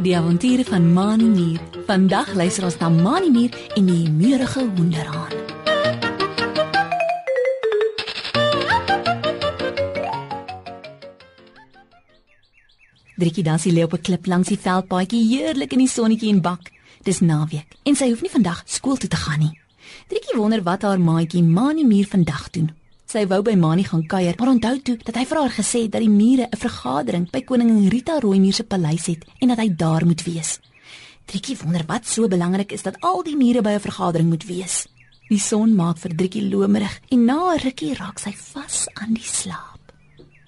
Die avonture van Mani Mier. Vandag luister ons na Mani Mier en die humeurige hoenderhaan. Driekie Dassie lê op 'n klip langs die veldpaadjie, heerlik in die sonnetjie en bak. Dis naweek en sy hoef nie vandag skool toe te gaan nie. Driekie wonder wat haar maatjie Mani Mier vandag doen. Sy wou by Mani gaan kuier, maar onthou toe dat hy vir haar gesê het dat die mure 'n vergadering by koningin Rita Rooimier se paleis het en dat hy daar moet wees. Driekie wonder wat so belangrik is dat al die mure by 'n vergadering moet wees. Die son maak vir Driekie lomerig en na 'n rukkie raak sy vas aan die slaap.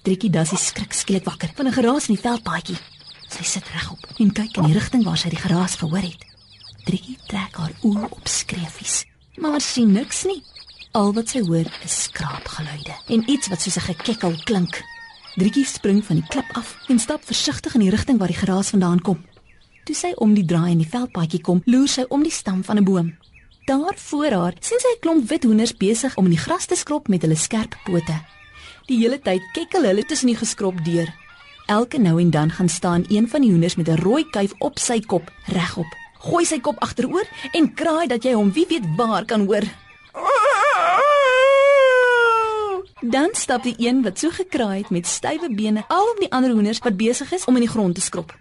Driekie Dassie skrik skielik wakker van 'n geraas in die veldpaadjie. Sy sit regop en kyk in die rigting waar sy die geraas gehoor het. Driekie trek haar oë op skreefies, maar sien niks nie. Al wat sy hoor is skraapgeluide en iets wat soos 'n gekekkel klink. Driekie spring van die klip af en stap versigtig in die rigting waar die geraas vandaan kom. Toe sy om die draai in die veldpaadjie kom, loer sy om die stam van 'n boom. Daar voor haar sien sy 'n klomp wit hoenders besig om in die gras te skrop met hulle skerp pote. Die hele tyd kekkel hulle tussen die geskrop deur. Elke nou en dan gaan staan een van die hoenders met 'n rooi kuif op sy kop regop. Gooi sy kop agteroor en kraai dat jy hom wie weet waar kan hoor. Dan stap die een wat so gekraai het met stywe bene al op die ander hoenders wat besig is om in die grond te skrop.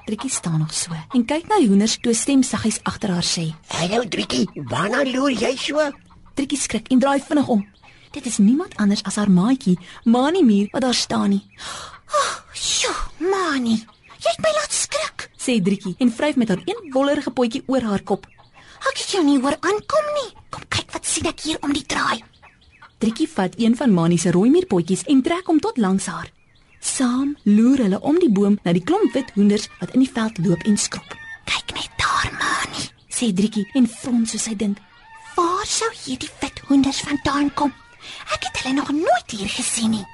Driekie staan nog so en kyk na die hoenders toe 'n stem saggies agter haar sê: "Hallo Driekie, waarna loer jy so?" Driekie skrik en draai vinnig om. Dit is niemand anders as haar maatjie, Mani Mier, wat daar staan nie. "Sjoe, Mani, jy het my laat skrik," sê Driekie en vryf met haar een wollerige potjie oor haar kop. "Ek het jou nie hoor aankom nie. Kom kyk wat sien ek hier om die draai." Driekie vat een van Mani se rooimierpotjies en trek hom tot langs haar. Saam loer hulle om die boom na die klomp wit hoenders wat in die veld loop en skrop. "Kyk net daar, Mani," sê Driekie en frons soos sy dink. "Waar sou hierdie wit hoenders vandaan kom? Ek het hulle nog nooit hier gesien nie."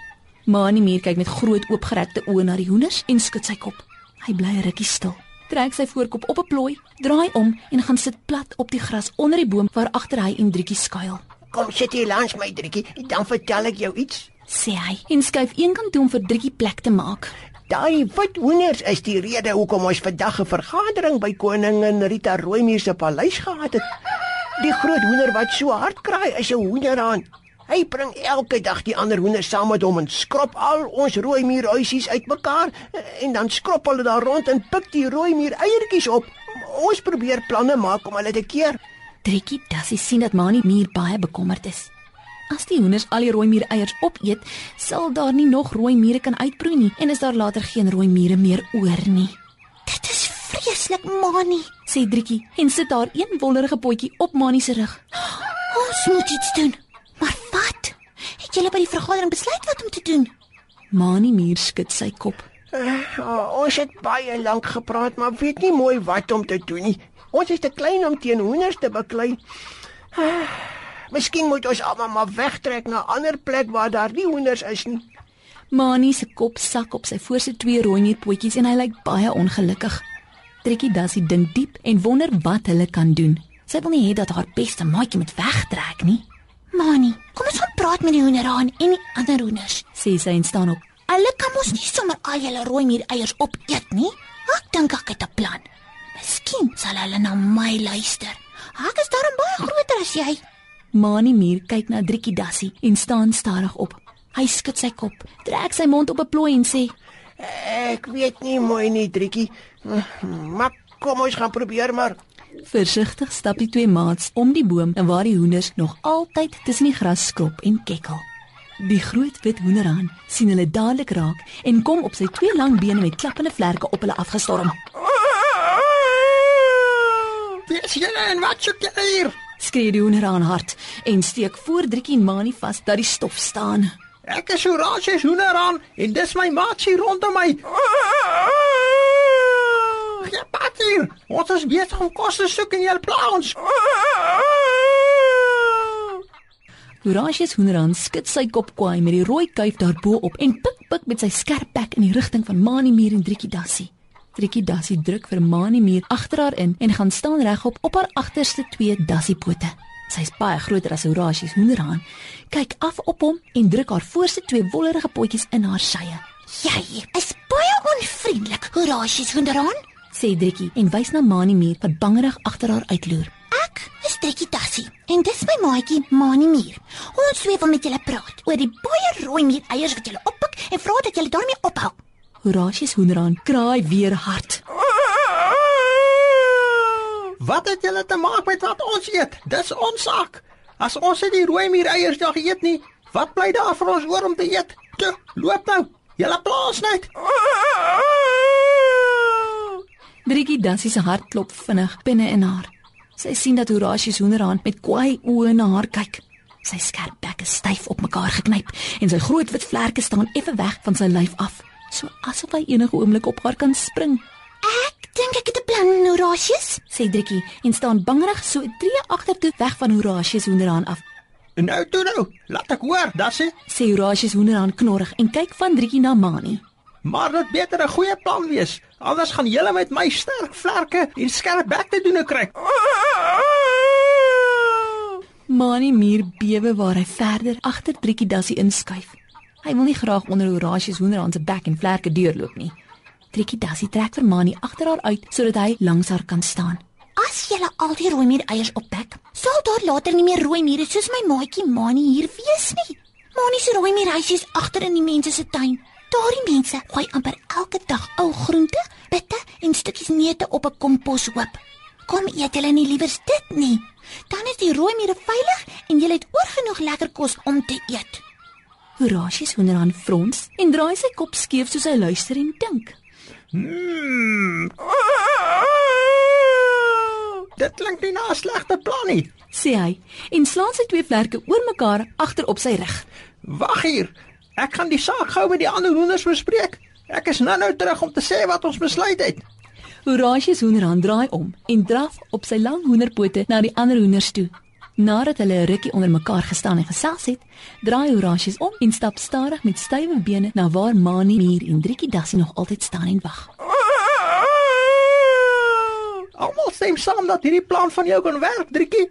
Mani Mier kyk met groot oopgerekte oë na die hoenders en skud sy kop. Hy bly 'n rukkie stil. Trek sy voorkop op 'n plooi, draai om en gaan sit plat op die gras onder die boom waar agter hy en Driekie skuil. "Kom sit hier langs my Driekie, dan vertel ek jou iets." Sê hy en skuif eenkant toe om vir Driekie plek te maak. Daai wit hoenders is die rede hoekom ons vandag 'n vergadering by koningin Rita Rooimier se paleis gehad het. Die groot hoender wat so hard kraai is 'n hoenderhaan. Hy bring elke dag die ander hoenders saam met hom en skrop al ons rooimierhuisies uitmekaar en dan skrop hulle daar rond en pik die rooimier eiertjies op. Ons probeer planne maak om hulle te keer. Driekie Dassie sien dat Mani Mier baie bekommerd is. As die hoenders al die rooimier eiers opeet, sal daar nie nog rooimiere kan uitbroei nie en is daar later geen rooimiere meer oor nie. "Dit is vreeslik, Mani," sê Driekie en sit haar een wollerige potjie op Mani se rug. "Ons moet iets doen." "Maar wat? Het julle by die vergadering besluit wat om te doen?" Mani Mier skud sy kop. Ons het baie lank gepraat, maar weet nie mooi wat om te doen nie. Ons is te klein om teen hoenders te beklei. Miskien moet ons almal maar wegtrek na 'n ander plek waar daar nie hoenders is nie. Mani se kop sak op sy voorste 2 rooimierpotjies en hy lyk baie ongelukkig. Driekie Dassie dink diep en wonder wat hulle kan doen. Sy wil nie hê dat haar beste maatjie moet wegtrek nie. "Mani, kom ons gaan praat met die hoenderhaan en die ander hoenders," sê sy en staan op. "Hulle kan mos nie sommer al julle rooimier eiers opeet nie. Ek dink ek het 'n plan. Miskien sal hulle na my luister. Ek is daarom baie groter as jy." Mani Mier kyk na Driekie Dassie en staan stadig op. Hy skud sy kop, trek sy mond op 'n plooi en sê: "Ek weet nie mooi nie, Driekie. Maar kom ons gaan probeer maar." Versigtig stap die 2 maats om die boom en waar die hoenders nog altyd tussen die gras skrop en kekkel. Die groot wit hoenderhaan sien hulle dadelik raak en kom op sy 2 lang bene met klappende vlerke op hulle afgestorm. "Wie is julle en wat soek julle hier?" skree die hoenderhaan hard en steek voor Driekie en Mani vas dat die stof staan. "Ek is Horatius Hoenderhaan en dis my maatjie rondom my. Ja, pat hier. Ons is besig om kos te soek en jy pla ons." Horatius Hoenderhaan skud sy kop kwaai met die rooi kuif daarbo op en pik met sy skerp bek in die rigting van Mani Mier en Driekie Dassie. Driekie Dassie druk vir Mani Mier agter haar in en gaan staan regop op haar agterste 2 dassiepote. Sy is baie groter as Horatius Hoenderhaan, kyk af op hom en druk haar voorste 2 wollerige potjies in haar sye. "Jy is Horasius Hoenderhaan? sê Driekie en wys na Mani Mier wat bangerig agter haar uitloer. Ek is Driekie Dassie en dis my maatjie Mani Mier. Ons twee wil met julle praat oor die baie rooi mier eiers wat julle oppik en vra dat julle daarmee ophou. Horasius Hoenderhaan kraai weer hard. Wat het julle te maak met wat ons eet? Dis ons saak. As ons nie die rooi mier eiers nog eet nie, wat bly daar vir ons oor om te eet? Toe, loop nou. Julle plaas net. Driekie Dassie se hart klop vinnig binne in haar. Sy sien dat Horasius Hoenderhaan met kwaai oë na haar kyk. Sy skerp bek is styf op mekaar geknyp en sy groot wit vlerke staan effe weg van sy lyf af, so asof hy enige oomblik op haar kan spring. Ek dink ek het 'n plan, Horasius, Sê Driekie en staan bangerig so 'n tree agtertoe weg van Horasius Hoenderhaan af. Nou toe nou, laat ek hoor, Dassie. Sê Horasius Hoenderhaan knorrig en kyk van Driekie na Mani. Maar dit beter 'n goeie plan wees, anders gaan julle met my sterk vlerke en skerp bek te doen kry. Mani Mier bewe waar hy verder agter Driekie Dassie inskuif. Hy wil nie graag onder Horasius Hoenderhaan se bek en vlerke deurloop nie. Driekie Dassie trek vir Mani agter haar uit sodat hy langs haar kan staan. as julle al die rooi mier eiers optek, sal daar later nie meer rooi miere soos my maatjie Mani hier wees nie. Mani se rooi mierhuis is agter in die mense se tuin. Daardie mense gooi amper elke dag ou groente, bitte en stukkies neute op 'n komposhoop. Kom eet julle nie liewers dit nie. Dan is die rooi miere veilig en julle het oorgenoeg lekker kos om te eet. Horasius Hoenderhaan frons en draai sy kop skeef soos hy luister en dink. Dit klink nie na 'n slegte plan nie. Sê hy en slaan sy twee vlerke oor mekaar agter op sy rug. Wag hier. Ek gaan die saak gou met die ander hoenders bespreek. Ek is nou terug om te sê wat ons besluit het. Horasius Hoenderhaan draai om en draf op sy lang hoenderpote na die ander hoenders toe. Nadat hulle 'n rukkie onder mekaar gestaan en gesels het, draai Horasius om en stap stadig met stywe bene na waar Mani Mier en Driekie Dassie nog altyd staan en wag. Almal stem saam dat hierdie plan van jou kan werk, Driekie.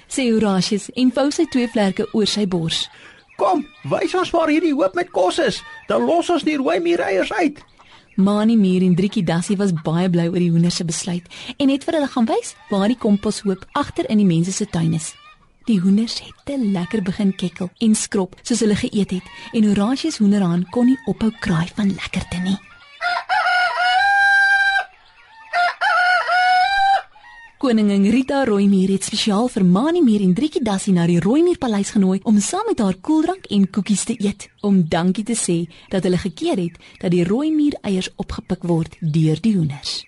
Sê Horasius en vou sy twee vlerke oor sy bors. Kom, wys ons waar hierdie hoop met kos is. Dan los ons die rooi miereiers uit. Mani Mier en Driekie Dassie was baie bly oor die hoenders se besluit en het vir hulle gaan wys waar die komposhoop agter in die mense se tuin is. Die hoenders het te lekker begin kekkel en skrop soos hulle geëet het en Horasius Hoenderhaan kon nie ophou kraai van lekkerte nie. Koningin Rita Rooimier het spesiaal vir Mani Mier en Driekie Dassie na die Rooimierpaleis genooi om saam met haar koeldrank en koekies te eet, om dankie te sê dat hulle gekeer het dat die Rooimier eiers opgepik word deur die hoenders.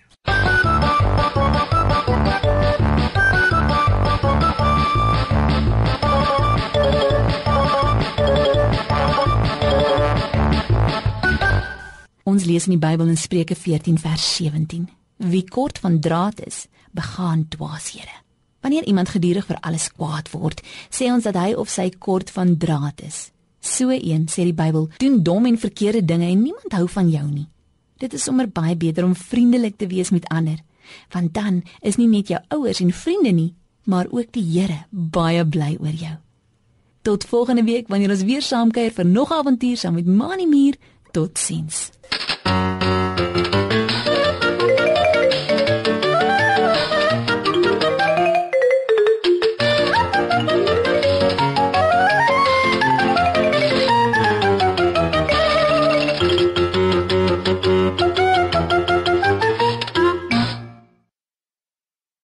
Ons lees in die Bybel in Spreuke 14 vers 17. Wie kort van draad is, begaan dwaashede. Wanneer iemand gedurig vir alles kwaad word, sê ons dat hy of sy kort van draad is. So een, sê die Bybel, doen dom en verkeerde dinge en niemand hou van jou nie. Dit is sommer baie beter om vriendelik te wees met ander, want dan is nie net jou ouers en vriende nie, maar ook die Here baie bly oor jou. Tot volgende week wanneer ons weer saamkuier vir nog 'n avontuur saam met Mani Mier. Totsiens.